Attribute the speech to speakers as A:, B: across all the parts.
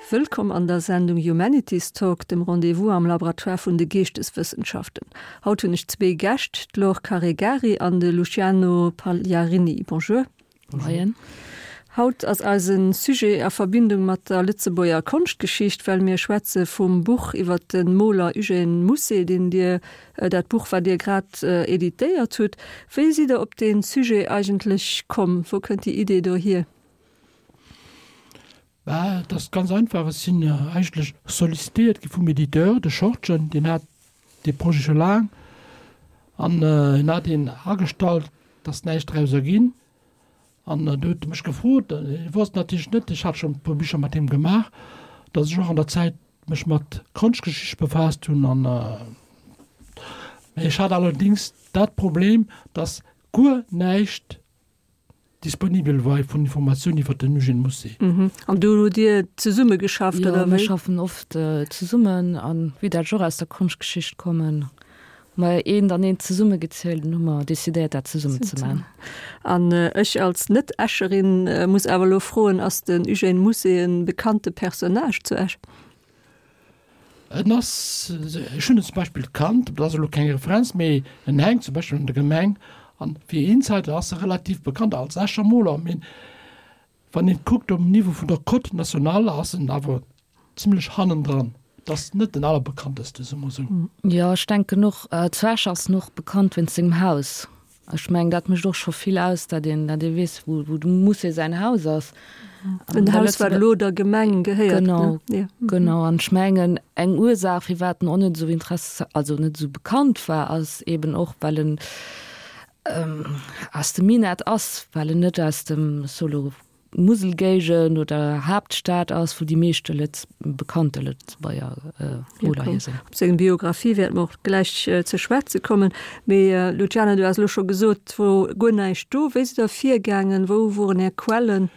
A: Wëllkomm an der Sendung Humanities Talk, dem Rendez-vous am Laboratoire vun de Geeschteswëssenschaften. Haut hunn ech zwee Gäscht, d'Laure Caregari an de Luciano Pagliarini. Bonjour.
B: Moien.
A: Haut ass eise Sujet a Verbindung mat der Lëtzebuerger Konschtgeschicht, well mir schwätze vum Buch iwwer de Moler Eugène Mousset, deen Dir, dat Buch wat Dir grad editéiert hutt. Wéi sidd Der op dee Sujet eigentlech komm? Wou kënnt déi Idee do hier?
B: Bah, et ass ganz einfach, ech sinn eigentlech sollicitéiert gi vum Editeur, de Schortgen, deen hat dee Projet scho laang an en hat een agestallt, et ass näischt draus erginn an du huet e mech gefrot, hie wosst natierlech net, ech hat schonn e puer Bicher mat him gemaach, datt ech och an der Zäit mech mat Konschtgeschicht befaasst hunn an ech hat allerdéngs dat Problem, datt guer näischt disponibel war vun Informatioun iwwer den Eugène Mousset.
A: An do hutt Dir zesumme geschafft,
C: oder wéi? Jo, mir schaffen oft zesummen an wéi dat ech och aus der Konschtgeschicht kommen, hu mer eent an eent zesummegezielt an hu mer decidéiert dat zesummen ze man.
A: An ech als Net-Escherin muss awer elo froen, ass den Eugène Mousset e bekannte Personnage zu Esch?
B: En ass, ech hunn en zum Beispill kannt, dat ass elo keng Referenz, mee en hänkt zum Beispill an der Gemeng an fir Insider ass e relativ bekannt als Escher Moler, mee wann een kuckt um Niveau vun der Cote nationale ass en awer zimlech hannendran. Et ass net den allerbekannteste, soe mer esou.
C: Jo, ech denken och, zu Esch ass en och bekannt wéinst sengem Haus. Ech mengen, dat mécht och scho vill aus, datt een, datt ee weess, wou, wou dem Musée säin Haus ass.
A: En Haus, wat elo der Gemeng gehéiert,
C: ne? Genau, genau. An ech mengen, eng Ursaach, firwat en och net esou interess-, also net esou bekannt war, ass eben och, well en aus dem Minett ass, well en net aus dem Solo Muselgéigend oder Haaptstad ass, wou déi meeschte Lëtz bekannte Lëtzebuerger Moler hier sinn.
A: Op seng Biographie wäerte mer och gläich ze schwätze kommen. Mee Luciana, du has elo scho gesot, et wor guer näischt do. Wéi sidd Der virgaangen? Wou woren Är Quellen?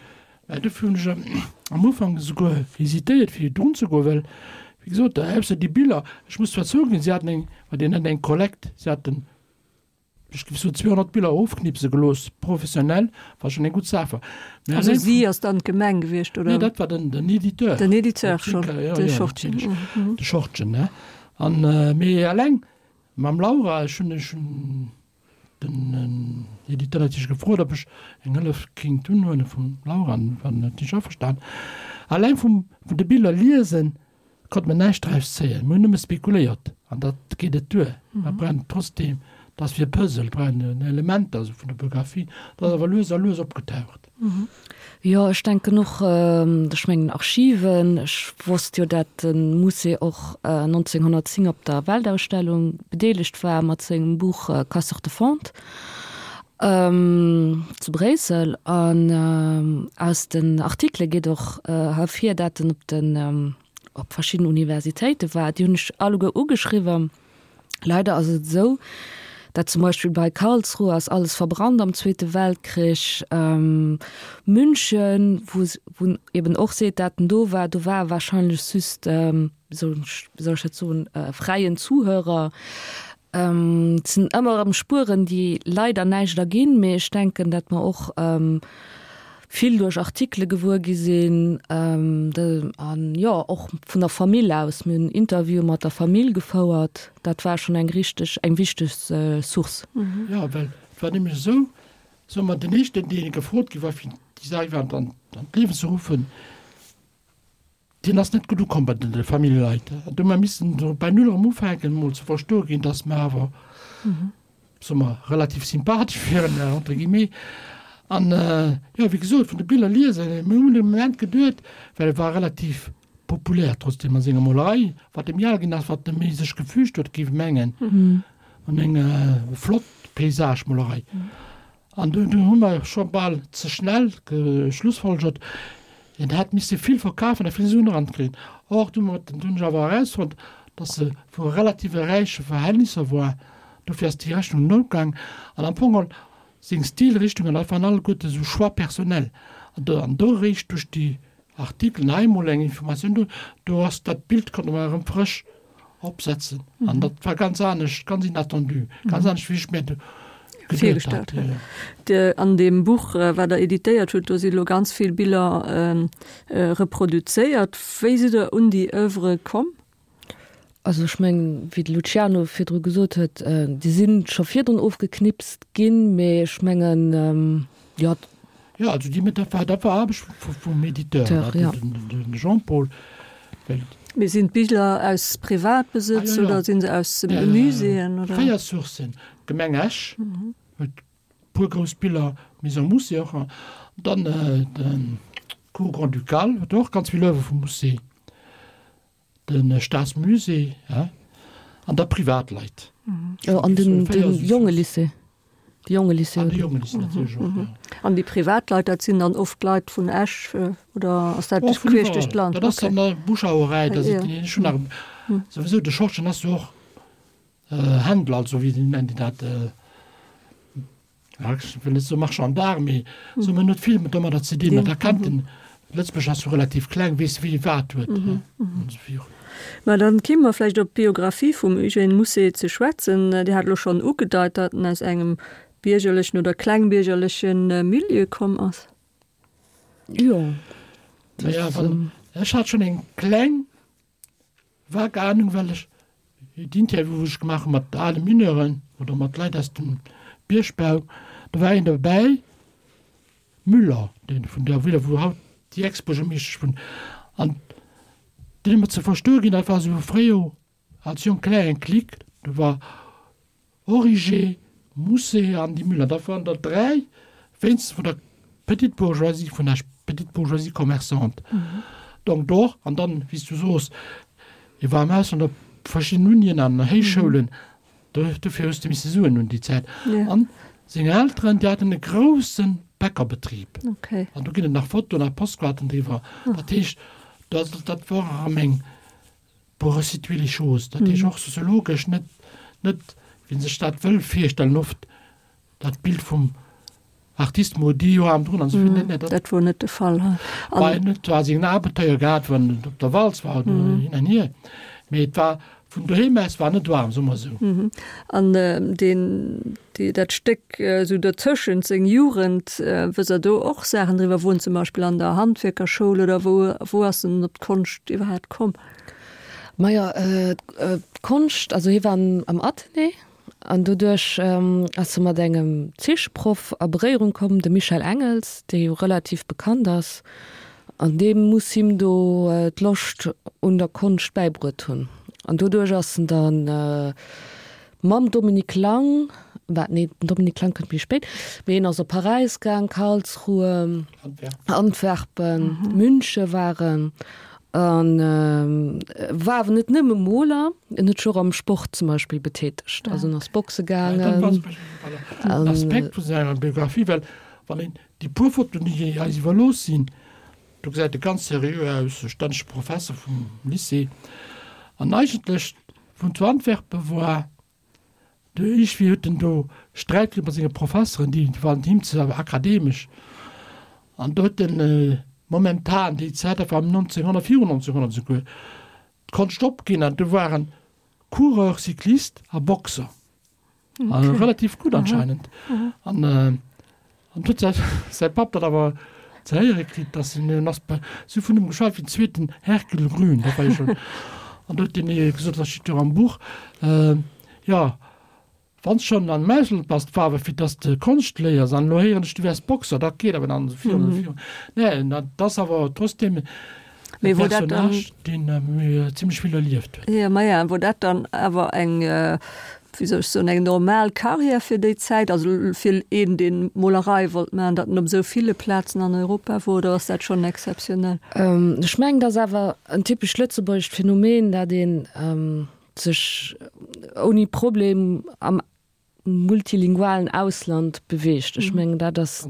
B: Mä dofir hunn ech am Ufank esouguer hesitéiert, fir drun ze goen, well, wéi gesot, ausser déi Biller, ech muss zwar zouginn, si haten eng, well deen hat eng Kollekt, si haten Ech géif soen 200 Biller ofknipse gelooss, professionell, wat schonn eng gutt Saach war.
A: Mä Also si ass dann d'Gemeng gewiescht, oder?
B: Nee, dat war den, den Editeur.
A: Den Editeur schonn, de Schortgen.
B: De Schortgen, ne. An, mee eleng mam Laura, ech hunn, ech hunn den Editeur natierlech gefrot, ob ech eng Hëllef kéint unhuele vum Laura, an war natierlech averstan. Eleng vum, vun de Biller liesen, Konnt mer näischt draus zéien, mer hunn nëmme spekuléiert an dat geet net duer. Mer brauchen trotzdem, dat ass wéi e Puzzle, brauchen Elementer esou vun der Biographie, dat ass awer lues a lues opgetaucht.
C: Jo, ech denken och, ech mengen Archiven, ech wosst jo dat de Musée och 1910 op der Weltausstellung bedeelegt war mat sengem Buch Casseurs de fonte zu Bréissel an aus den Artikele geet och hervir, dat en op den op verschidden Universitéite war. Déi hunn ech alleguer ugeschriwwen. Leider ass et esou, dat zum Beispill bei Karlsruhe ass alles verbrannt am Zweete Weltkrich. München, wou wou en eben och seet, dat en do war, do war e wahrscheinlech just, wéi soll ech dat soen, fräien Zuhörer. Et sinn ëmmer erëm Spueren, déi leider näischt erginn, mee ech denken, datt mer och vill duerch Artikele gewuer gi sinn an, jo, och vun der Famill aus. Mir hunn Interviewe mat der Famill gefouert, dat war schonn eng richteg, eng wichteg Source.
B: Jo, well et war nämlech esou, soe mer, den éischten, dee gefrot gi war, fir déi Saach iwwerhaapt an d'Liewen ze ruffen, Deen ass net gutt ukomm bei de Familljeleit. An do hu mer missen do bei Null erëm ufänken, emol ze verstoe ginn, dass mer awer, soe mer, relativ sympathesch wieren, entre guillemets. An, jo, wéi gesot, vun de Biller liesen, mir hunn e Moment geduet, well e war relativ populär trotzdeem a senger Molerei, wat e méi al ginn ass, wat e méi sech gefügt huet, géif ech mengen, an eng flott Paysagemolerei. An do hu mer scho bal ze schnell geschlussfolgert, en hätt misse vill verkafen a vill Suen erankréien. Or, du hunn ech awer erausfonnt, datt se vu relative räiche Verhältnisser war. Dofir ass déi Rechnung net opgaang. An am Fong geholl seng Stilrichtungen, dat waren alleguerte sou Choix personnels. An do eréischt duerch déi Artikelen, hei emol eng Informatioun do, do ass dat Bild, konnte mer erëm frësch opsetzen. An dat war ganz anescht, ganz inattendu, ganz anescht wéi ech mir.
A: Virgestallt huet. An deem Buch, wat Der editéiert hutt, do si lo ganz vill Biller reproduzéiert. Wéi sidd Der un déi Oeuvre komm?
C: Also ech mengen, wéi de Luciano virdru gesot huet, déi si scho virdrun ofgeknipst ginn, mee ech mengen, jo.
B: Jo, also déi, dat war, dat war Aarbecht vum Editeur, de Jean-Paul,
A: well. Mee sinn d'Biller aus Privatbesëtz oder si se aus Muséeën
B: oder? 4 Sourcen, d'Gemeng Esch huet puer grouss Biller, Maison Mousset och, an dann de Cour Grand-Ducale huet och ganz vill Oeuvre vum Mousset. De Staatsmusée an da Privatleit.
C: Jo, an den Jongelycée. De Jongelycée.
B: An de Jongelycée natierlech och, jo.
A: An déi Privatleit, dat sinn dann oft Leit vun Esch oder ass dat queesch duerch d'Land?
B: Dat ass dann Bouche-à-oreille, dat sinn ech hunn nach souwisou de Schorschen ass jo och Händler, also wéi nennen déi dat? Ja, ech wëll net soe Marchand d'art, mee soe mer, en huet vill domadder ze dinn. An da kennt en, Lëtzebuerg ass jo relativ kleng, weess wie wat huet.
A: Mä dann kéime mer vläicht op d'Biographie vum Eugène Mousset ze schwätzen. Dir hat elo schonn ugedeit, datt en aus engem biergerlechen oder klengbiergerleche Milieu komm ass.
C: Jo.
B: Naja, wann, ech hat schonn eng kleng Vag Ahnung, well ech d'Interview wou ech gemaach hu mat ale Mineuren oder mat Leit aus dem Biergbau, do war een dobäi, Müller, dee vun der Villa wou haut déi Ex-Buergermeeschtesch wunnt, an deen huet mer ze verstoe ginn, dat war esou fréier als jonk Klär eng Clique, do war Origer, Mousset an déi Müller, dat waren der 3 wéinstens vun der petite bourgeoisie vun Esch, petite bourgeoisie commerçante. Donc do och, an dann, wéi s du soos, hie war am Ausland op verschiddenen Unien an Héichschoulen, do, dofir hues de misse Suen hunn déi Zäit. An seng Elteren, déi haten e grousse Bäckerbetrib. An do ginn et nach Fotoen a Postkaarten driwwer. Dat heescht, dat, dat war erëm eng, Pour resituer les choses, dat heescht och soziologesch, net, net wéi een sech dat wëll virstellen oft, dat Bild vum Artiste maudit, jo aarm drun an esou vill, net, net,
A: dat. Dat wor net de Fall.
B: War en huet zwar seng Abenteuer gehat, wann en op der Walz war oder hin an hier, mee et war vun doheem aus war net waarm, soe mer esou.
A: An deen, déi, dat Stéck esou dozëschent, seng Jugend, wësst Der do och Saachen driwwer, wou en zum Beispill an der Handwierkerschoul oder wou, wou ass en op d'Konscht iwwerhaapt komm?
C: Majo, d'Konscht, also hie war am Athenée an doduerch ass e mat engem Zeecheproff a Beréierung komm, de Michel Engels, dee jo relativ bekannt ass, an dee muss him do d'Loscht un der Konscht bäibruet hunn. An doduerch ass en dann Mam Dominique Lang, wat, nee, den Dominique Lang kënnt méi spéit, mee hien ass op Paräis gaang, Karlsruhe, Antwerpen, Münche war en an war awer net nëmme Moler, en huet sech och am Sport zum Beispill betätegt, also en ass boxe gaangen.
B: En Aspekt vu senger Biographie, well wann een déi puer Fotoen, déi eis iwwerlooss sinn, do gesäit e ganz seriö aus, e stännege Professer vum Lycée, an eigentlech Vun zu Antwerpen war de iergwéi huet en do Sträit kritt mat senge Professeren, déi waren him ze akademesch. An do huet en momentan, déi Zäit, dat war 1900, virun 1900 esouguer, d'Konscht opginn an du war en Coureur cycliste a Boxer. Okay. Relativ gutt anscheinend. An an huet säi säi Papp dat awer ze héiere kritt, dass en en ass bei si vun him geschwat wéi den zweeten Hercule Grün, dat war jo schonn. An do huet deen ee gesot, dat steet jo am Buch, jo, wann s schonn an Ausland bass, war awer fir dass de Konscht léiers an elo héieren ech, du wäers Boxer, dat geet awer dann esou virun a virun. Nee, dat ass awer trotzdem
A: Mee wor dat dann.
B: Personnage, deen zimmlech vill erlieft
A: huet. Jo, maja, wor dat dann awer eng, wéi soll ech soen, eng normal Carrière fir déi Zäit, also fir een, deen Molerei wollt maachen, datt en op esou ville Plazen an Europa wor, oder ass dat schonn exzeptionell?
C: Ech mengen, dat ass awer en typescht lëtzebuergescht Phänomen, dat ee sech ouni Problem am multilingualen Ausland beweegt. Ech mengen, dat ass,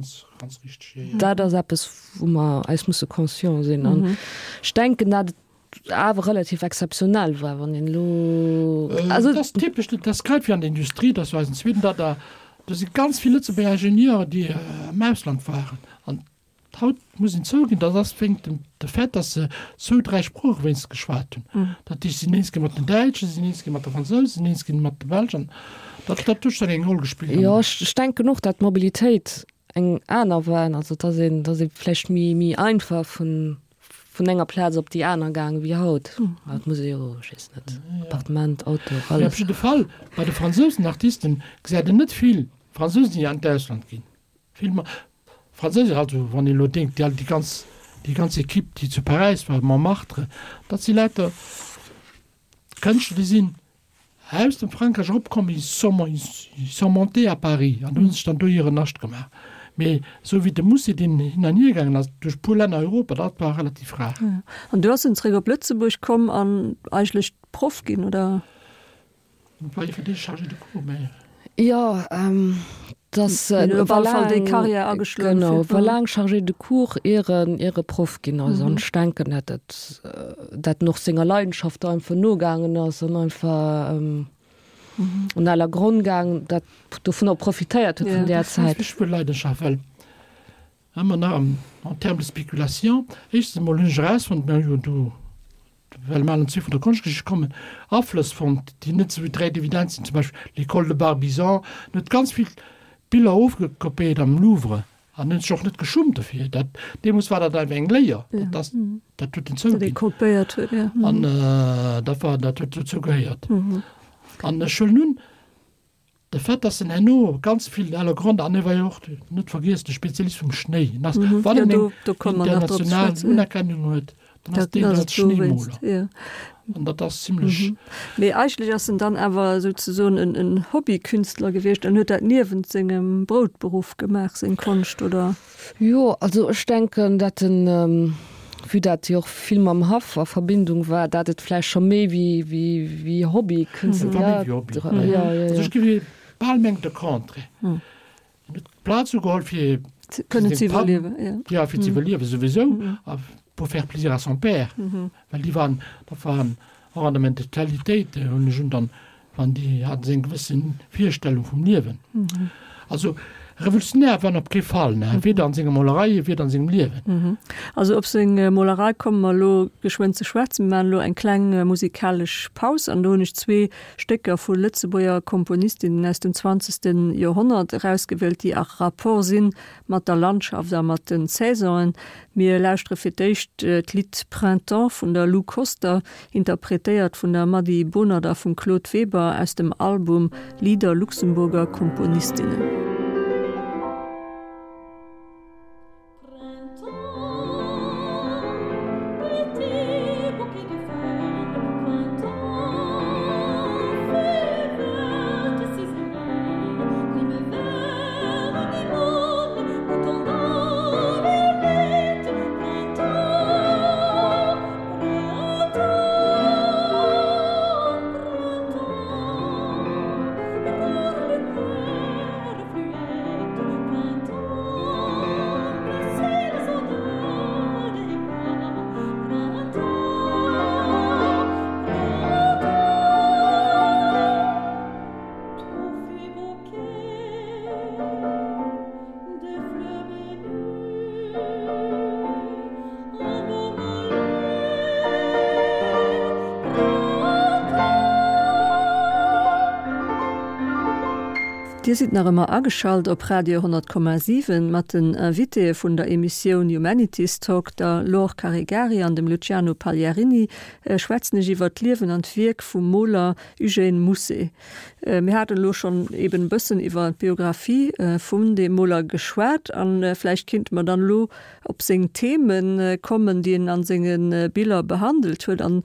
C: dat ass eppes, wou mer eis musse conscient sinn. An ech denken, dat et awer relativ exzeptionell war, wann een elo,
B: also. Dat ass typesch, dat ass grad wéi an der Industrie, dat war eisen zweeten, dat da, do si ganz vill Lëtzebuerger Ingenieuren, déi am Ausland waren. An Haut muss een zouginn, dat ass wéinst dem de Fait, datt se zwou, dräi Sprooche wéinstens geschwat hunn. Dat heescht, si sinn eens ginn mat den Däitschen, si sinn eens ginn mat de Fransousen, si sinn eens ginn mat de Belsch. An Dat, dat huet schonn eng Roll gespillt.
C: Jo, ech denken och, dat d'Mobilitéit eng aner war, also dass een, dass ee vläicht méi, méi einfach vun, vun enger Plaz op déi aner gaang wéi haut. Haut muss ee jo, ech weess net, Appartement, Auto,
B: Mee op
C: alles.
B: jidde Fall, bei de fransousen Artisten gesäit een net vill Fransousen, déi an d'Ausland ginn. Vill ma Franséiser, also wann een elo denkt, déi déi ganz, déi ganz Equipe, déi zu Paräis war, Montmartre, dat si lauter Kënschtler, déi sinn aus dem Frankräich eropkomm, ils sont, ils sont montés à Paris an hu sech dann do hiren Nascht gemaach. Mee esou wéi de Musset, deen hin an hier gaangen ass duerch puer Länner Europa, dat war relativ rar.
A: An du ass en zeréck op Lëtzebuerg komm an eigentlech Proff ginn, oder?
B: War jo fir d'éischt Chargé de cours, mä.
C: Jo, dass
A: op alle Fall déi Carrière ageschloen.
C: Genau, war laang Chargé de cours, ier en, ier e Proff ginn ass. An ech denken, dat dat, dat en och senger Leidenschaft einfach nogaangen ass an einfach un aller Gronn gaangen, dat dovunner profitéiert huet vun där Zäit.
B: Ech wëll Leidenschaft, well ëmmer nach en termes de spéculation, éischtens emol hunn ech erausfonnt, mir hu jo do well mer allen zwee vun der Konschtgeschicht kommen, Aflëss fonnt, déi net esou direkt evident sinn, zum Beispill l'École de Barbizon, en huet ganz vill Biller ofgekopéiert am Louvre an huet sech och net geschummt dofir. Dat, deemools war dat einfach eng Léier, dat ass, dat huet en zouginn. An dat war, dat huet dozou gehéiert. An ech huelen un, De Fait, dass en herno ganz vill à la grande, an e war jo och, net vergiessen, de Spezialist vum Schnéi, en ass, wann en eng international Unerkennung huet, dann ass deen als Schnéimoler. An dat ass zimlech.
A: Mee eigentlech ass en dann awer souzesoen en Hobbykünstler gewiescht an huet dat niewent sengem Broutberuff gemaach, seng Konscht, oder?
C: Jo, also ech denken, dat en, vue dat jo och vill mam Haff a Verbindung war, dat et vläicht scho méi wéi, wéi, wéi Hobby
B: kënnt. Et war méi wéi Hobby. Ja, ja, ja. Also ech géif bal mengen de Contraire. En huet d'Plaz ugeholl fir
A: Kënnen ze iwwerliewen, ja.
B: Ja, fir ze iwwerliewen souwisou a pour faire plaisir à son père, well déi waren, dat waren och an der Mentalitéit, hunn ech un dann Wann déi haten se eng gewësse Virstellung vum Liewen. Also revolutionär war en op kee Fall, ne, weder an senger Molerei, weder an sengem Liewen.
A: Also op seng Molerei komme mer elo geschwënn ze schwätzen. Mir maachen elo eng kleng musikalesch Paus an do hunn ech zwee Stécker vu Lëtzebuerger Komponistinnen aus dem zwanzegste Joerhonnert erausgewielt, déi a Rapport si mat der Landschaft a mat den Saisonen. Mir lauschtere fir d'éischt d'Lidd Printemps vun der Lou Koster, interpretéiert vun der Mady Bonert a vum Claude Weber aus dem Album Lieder Luxemburger Komponistinnen. Dir sidd nach ëmmer ageschalt op Radio 10,7 mat den Invitéë vun der Emissioun Humanities Talk, der Laure Caregari an dem Luciano Pagliarini, schwätzen ech iwwer d'Liewen an d'Wierk vum Moler Eugène Mousset. Mir haten elo schonn eben e bëssen iwwer d'Biographie vun deem Moler geschwat a vläicht kinnte mer dann elo op seng Theme kommen, déi en a senge Biller behandelt huet. An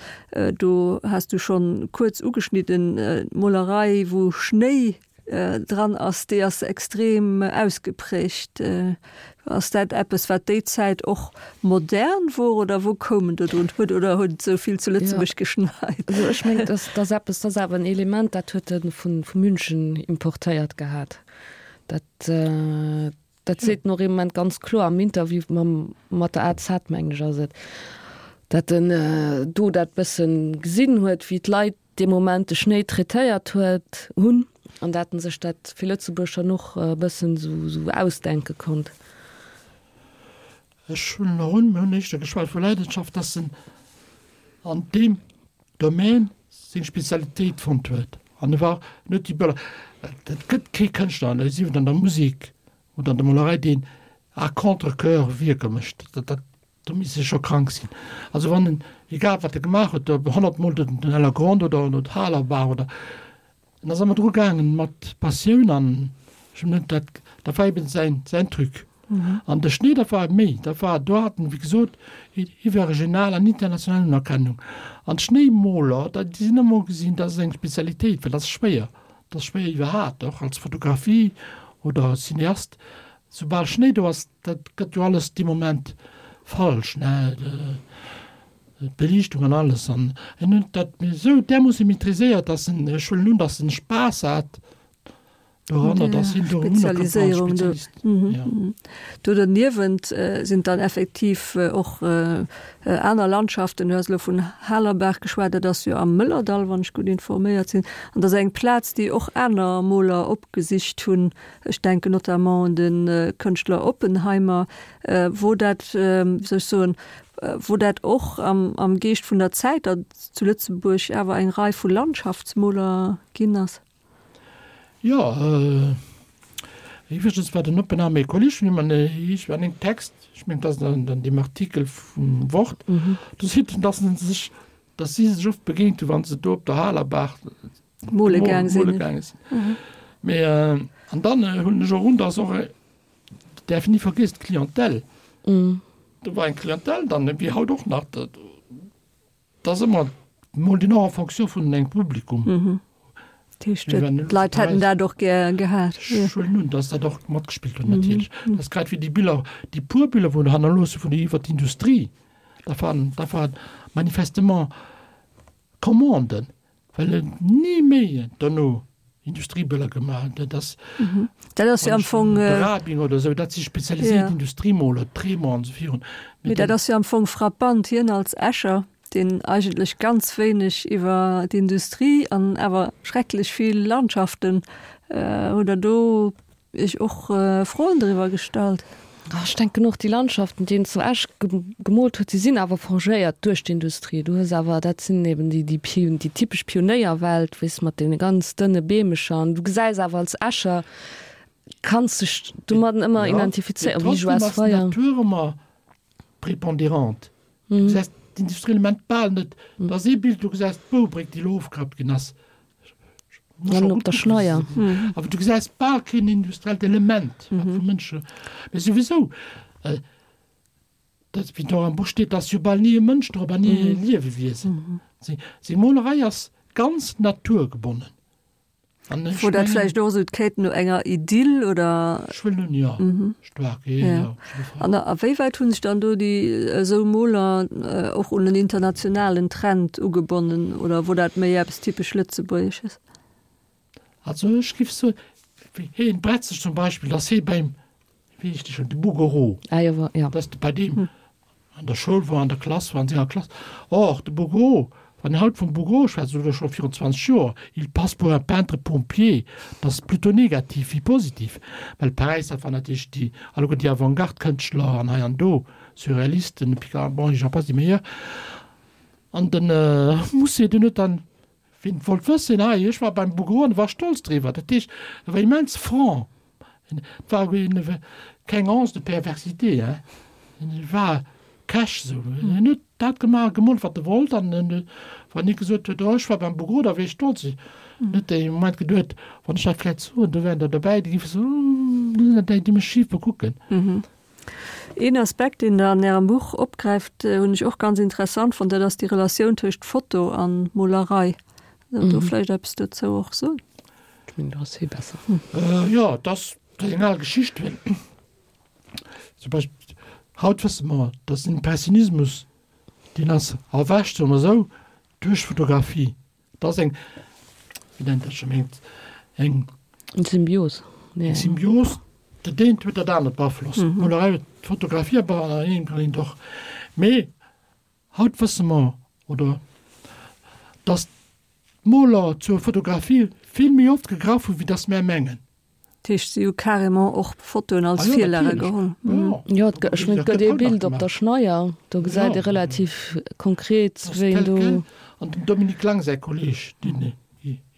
A: do has du schonn kuerz ugeschnidden, d'Molerei wou Schnéi dran ass, déi ass extrem ausgeprägt. Ass dat eppes, wat déi Zäit och modern wor oder wou koum en do drun? Huet oder huet et esou vill zu Lëtzebuerg geschneit?
C: Also ech mengen, dat ass eppes, dat ass awer en Element, dat huet e vu München importéiert gehat. Dat, dat seet en och ee Moment ganz kloer am Interview mam, mat der AZ, mengen ech ass et, dat en do dat bëssen gesinn huet, wéi d'Leit dee Moment de Schnéi traitéiert huet, hunn, an dat en sech dat fir Lëtzebuerg dann och e bëssen esou ausdenke konnt.
B: Ech huelen och un, mir hunn éischter geschwat vu Leidenschaft, dass en an deem Domaine seng Spezialitéit fonnt huet an e war net déi Böller. Et gëtt kee Kënschtler, sief et an der Musek oder an der Molerei, deen à contre-coeur Wierker mécht. Dat, do misst e scho krank sinn. Also wann en, egal wat e gemaach huet, ob 100 Mol den Ellergrond oder d'Halerbaach oder, en ass ëmmer dru gaangen mat Passioun an ech hunn net dat, dat war eben säin, säin Truc. An de Schnéi, dat war méi, dat war, do hat en, wéi gesot, iwwerregional an international Unerkennung. An d'Schnéimoler, dat, déi sinn ëmmer ugesinn, dat ass eng Spezialitéit, well dat ass schwéier, dat ass schwéier iwwerhaapt, och als Fotografie oder Cineast, soubal Schnéi do ass, dat gëtt jo alles dee Moment falsch, ne, d'Beliichtung an alles. An en huet dat esou därmoosse maîtriséiert, dass en, ech huelen un, dass en Spaass hat doranner, dass hien do unerkannt war als Spezialist.
A: Ja. Do derniewent sinn dann effektiv och aner Landschaften. Du has elo vun Halerbaach geschwat, dat ass jo am Mëllerdall, wann ech gutt informéiert sinn. An dat ass eng Plaz, déi och aner Moler opgesicht hunn. Ech denken notamment un de Kënschtler Oppenheimer, wou dat, wéi soll ech soen, wou dat och am Geescht vun der Zäit, datt et zu Lëtzebuerg awer eng Rei vu Landschaftsmoler ginn ass.
B: Jo, iwwregens war den Oppenheimer ee Kolleg vun him an ech war an engem Text, ech mengen, et ass an deem Artikel vum Wort, do seet en, datt en sech, datt si sech oft begéint hu wa se do op der Halerbaach
A: Mole gaang sinn. Mole gaange
B: sinn. Mhm. Mee äh, an dann äh, hunn ech och un, dass och äh, däerf ni vergiss d'Clientèle. Mm. Do war eng Clientèle dann, wéi haut och nach, dat ass ëmmer mol den och en fonction vun engem Publikum.
A: Mhm. D'Leit hätten dat och gär gehat.
B: Ech huelen un, dass dat och matgespillt huet natierlech. Mhm. Dat ass grad wéi déi Biller, déi puer Biller, wou hannerloosse vun iwwer d'Industrie, dat waren, dat waren manifestement Commanden. Well en ni méi dono Industriebëller gemaach huet. Dat ass,
A: Dat ass jo am Fong.
B: De Rabing oder esou, dat si spezialiséiert Industriemoler, Tremont an esou virun.
A: Mee dat ass jo am Fong frappant, hien als Escher, deen eigentlech ganz wéineg iwwer d'Industrie an awer schrecklech vill Landschaften, hutt Der do Iech och Froen driwwer gestallt?
C: Ech denken och, déi Landschaften, déi en zu Esch gemoolt huet, déi sinn awer forgéiert duerch d'Industrie. Du hues awer, dat sinn eben déi, déi déi typesch Pionéierwelt, weess, mat deene ganz dënne Beemecher. An du gesäis awer als Escher, kanns dech domadden ëmmer identifizéieren, wéi
B: Joas Weyer. Jo, mee trotzdem ass d'Natur ëmmer prépondérante. Du gesäis d'Industrieelement bal net. Et ass ee Bild, du gesäis d'Boubréck, déi elo ofgerappt ginn ass.
C: An op der Schneier.
B: Awer du gesäis bal keen industriellt Element, wat vu Mënsche. Mee souwisou, dat, wéi do am Buch steet, ass jo bal ni e Mënsch drop an ni e Liewewiesen. Seng Molerei ass ganz naturgebonnen.
A: An ech Wor dat vläicht och esou d'Quête no enger Idyll oder?
B: Ech wëll nun, jo, staark, jo, jo, op jidde
A: Fall. An a wéi wäit hu sech dann do déi esou Moler och un en internationalen Trend ugebonnen oder wor dat méi eppes typesch Lëtzebuergesches?
B: Also ech giff soen, wéi heen Bretzeg zum Beispill, dass hee beim, wéi heescht dee schonn, de Bouguereau,
C: Ah jo, ja.
B: dass de bei deem an der Schoul war, an der Klass war, an senger Klass. Or, de Bouguereau, wann een haut vum Bouguereau schwätzt, oder scho virun 20 Joer, il passe pour un peintre pompier, dat ass plutôt negativ wéi positiv, well Paräis, dat war natierlech déi, alleguer déi Avantgarde-Kënschtler an hei an do, Surrealisten, Picasso, bon, j'en passe, des meilleurs. An de Musset, deen huet dann Wien et wollt wëssen, hei, ech war beim Bouguereau an e war stolz driwwer. Dat heescht, e war immens franc. Et war keng Once de perversité, hein. E war cash esou. En huet dat gemaach, gemoolt, wat e wollt. An wann hie gesot huet, oh, ech war beim Bouguereau, da wier ech stolz. En huet dee Moment geduet, wann ech dat vläicht soen, do wären der derbäi, déi géife soen, do sinn der déi, déi mech schif bekucken.
A: Een Aspekt, deen Der an Ärem Buch opgräift, hunn ech och ganz interessant fonnt, dat ass déi Relatioun tëscht Foto a Molerei. Kënnt Der do vläicht eppes dozou och soen?
C: Ech mengen, do ass hie besser.
B: Jo, et ass eng al Geschicht. Zum Beispill, haut wësse mer, datt den Impressionismus, deen ass erwächt, soe mer esou, duerch d'Fotografie. Dat ass eng, wéi nennt dat scho, eng,
C: eng. Eng Symbios.
B: Eng Symbios, dat eent huet dat anert beaflosst. D'Molerei huet d'Fotografie an engem kann een och. Mee haut wësse mer, oder datt d'Moler zur Fotografie vill méi oft gegraff hunn, wéi datt mär mengen.
A: Dat heescht, si hu carrément och Fotoen als Virlage geholl.
C: Jo, ech mengen, et gëtt ee Bild op der Schneier, do gesäit ee relativ konkret, wéi een do.
B: An dem Dominique Lang säi Kolleeg, deen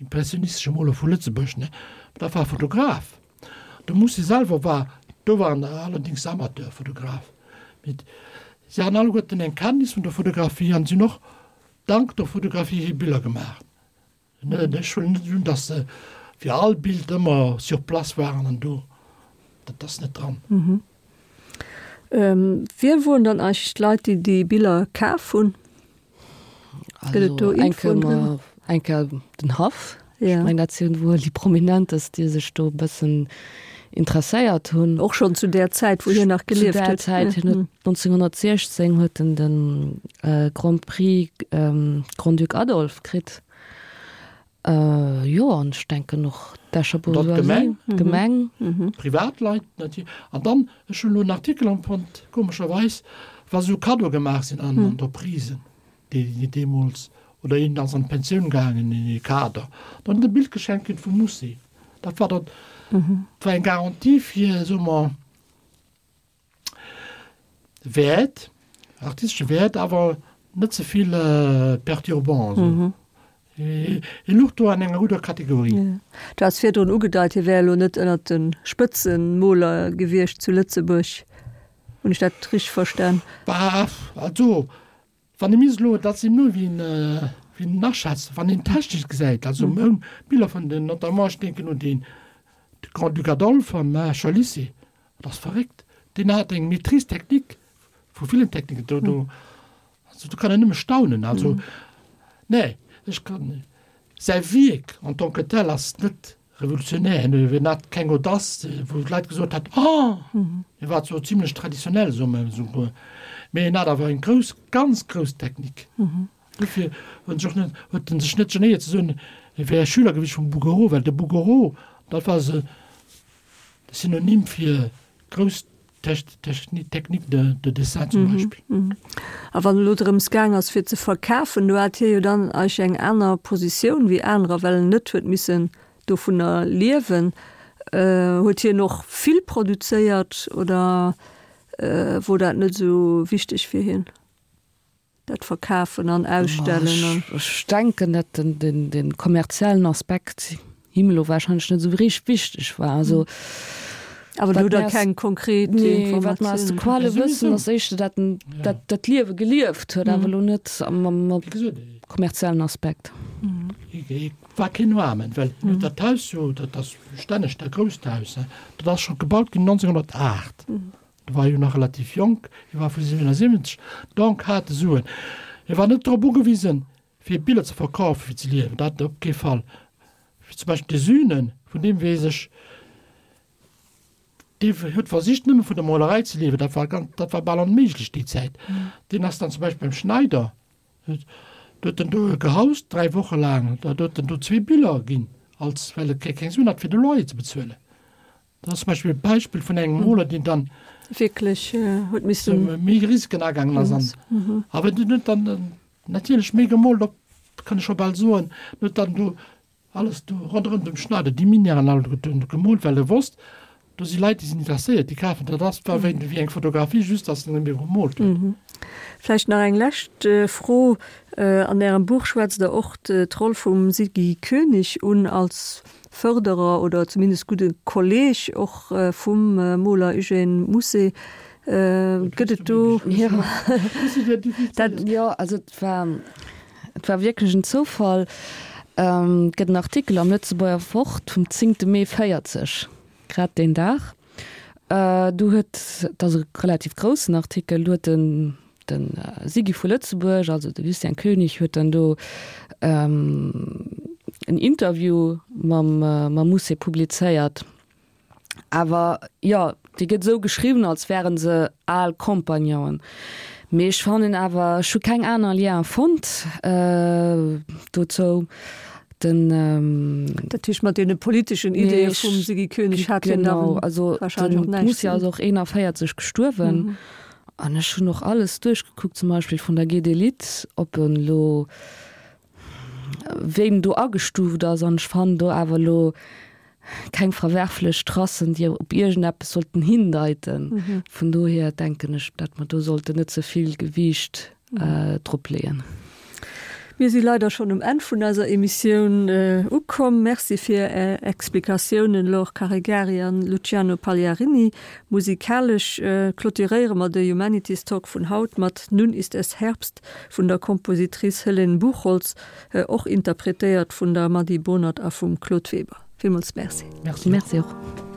B: impressionistesche Moler vu Lëtzebuerg, ne? Dat war Fotograf. De Musset selwer war, do war en allerdings Amateurfotograf, mee si haten alleguerten eng Kenntnis vun der Fotografie an sinn och dank der Fotografie hir Biller gemaach. Ech huelen net un, datt se fir all Bild ëmmer sur place waren an do, dat ass net dran.
A: Wie woren dann eigentlech d'Leit, déi déi Biller kaf hunn?
C: Gëtt et do Infoen driwwer? Eng Kéier den Haff. Ech mengen, dat sinn wuel déi Prominentest, déi sech do e bëssen interesséiert hunn.
A: Och schonn zu där Zäit, wou hien nach gelieft
C: huet. Zu där Zäit, hien huet 1916 huet en de Grand Prix Grand-Duc Adolphe kritt. Jo, an ech denken och d'Escher
B: Bourgeoisie, d'Gemeng. Privatleit natierlech. An dann, ech hunn elo en Artikel empfonnt, komescherweis, wa sou Cadeau gemaach sinn an Entreprisen, déi deemools, oder een ass an d'Pensioun gaangen, ee Kader, dann huet e Bild geschenkt kritt vum Musée. Dat war dann, dat war eng Garantie fir, soe mer, Wäert, artistesche Wäert, awer net ze vill perturbant. Mhm. E luch do an enger gudder Kategorie.
A: Ja. Du has virdrun ugedeit, hie wär elo net ënnert de Spëtzemoler gewiescht zu Lëtzebuerg. Hunn ech dat richteg verstan?
B: Bah, also Wann ee misst elo, dat sinn elo wéi een aschätzt, wann een technesch gesäit, also meng Biller vun den, notamment ech denken un deen de Grand-Duc Adolphe am Escher Lycée, dat ass verréckt, deen hat eng Maîtrise technique vu villen Techniken, do, do, also do kann een nëmme staunen. Also, nee, ech kann, säi Wierk en tant que tel ass net Revolutionär, hien hat keng Audace, wou d'Leit gesot hätt, Oh! Hie war zwar zimlech traditionell, soe mer esouguer, mee hien hat awer eng grouss, ganz grouss Technik. Dofir huet en sech och net, huet en sech net genéiert ze soen, hie wär Schüler gewiescht vum Bouguereau, well de Bouguereau, dat war se Synonym fir grouss Technique de, de dessin zum Beispill.
A: A wann elo drëms gaang ass fir ze verkafen, do hat hie jo dann eigentlech eng aner Positioun wéi anerer, well en net huet missen dovunner liewen. Huet hien och vill produzéiert oder wor dat net esou wichteg fir hien? Dat Verkafen an Ausstellen an.
C: Ech denken, datt den kommerziellen Aspekt him elo wahrscheinlech net esou richteg wichteg war. Also,
A: Awer do hutt Der keng konkret
C: Informatiounen? Nee, wat mer aus de Quelle wëssen, ass éischter, datt en dat Liewe gelieft huet, awer elo net mam kommerziellen Aspekt.
B: Et war keen Aarmen, well dat Haus jo, dat ass stänneg dat grousst Haus, dat ass scho gebaut ginn 1908. E war jo nach relativ jonk, hie war vu 77, donc hat e Suen. Hie war net drop ugewisen, fir Biller ze verkafen, fir ze liewen, dat op kee Fall. Wéi zum Beispill de Sünen, vun deem weess ech, dee huet versicht, nëmme vun der Molerei ze liewen, dat war ganz, dat war bal onméiglech déi Zäit. Deen ass dann zum Beispill beim Schneider, do huet en do gehaust, dräi Woche laang, da huet en do zwee Biller ginn, als, well e keng Suen hat, fir de Loyer ze bezuelen. Dat ass zum Beispill e Beispill vun engem Moler, deen dann
A: wierklech huet missen
B: méi Risiken agaangen ass an awer deen huet dann natierlech méi gemoolt op, kann ech scho bal soen, en huet dann do alles do ronderëm dem Schneider, déi Minièren all gemoolt, well e wosst, do si Leit, déi sinn interesséiert, déi kafen dat. Ass war wéi eng Fotografie, just datt en net méi gemoolt huet.
A: Vläicht nach eng lescht Fro, An Ärem Buch schwätzt Der och d'Roll vum Siggy Koenig un als Fërderer oder zumindest gudde Kolleg och vum Moler Eugène Mousset. Gëtt et do.
C: Dat, jo, also et war, et war wierklech en Zoufall. Et gëtt en Artikel am Lëtzebuerger Wort vum zéngte Mee 40, grad deen Dag. Do huet, et ass e relativ groussen Artikel, do huet den De Siggy vu Lëtzebuerg, also de Lucien Koenig, huet dann do en Interview mam mam Mousset publizéiert. Awer jo, dee gëtt esou geschriwwen, als wäre se al Compagnonen. Mee ech fannen awer, ech hu keng aner Lien fonnt dozou.
A: Den. Dat heescht, mat deene politeschen Ideeë vum Siggy Koenig hat hien da
C: wahrscheinlech och näischt ze dinn. Genau, also de Mousset ass och 41 gestuerwen. An ech hunn och alles duerchgekuckt, zum Beispill vun der Gedelit, ob en elo, wéi en do agestuuft ass. An ech fannen do awer elo keng verwerflech Tracen, déi op iergendeppes sollten hindeiten. Vun dohier denken ech, datt mer do sollten net ze vill Gewiicht drop leeën.
A: Mir si leider schonn um Enn vun eiser Emissioun ukomm. Merci fir Är Explikatiounen, Laure Caregari an Luciano Pagliarini. Musikalesch clôturéiere mer de Humanities Talk vun haut mat Nun ist es Herbst vun der Kompositrice Helene Buchholtz, och interpretéiert vun der Mady Bohnert a vum Claude Weber. Villmools Merci.
B: Merci
C: och.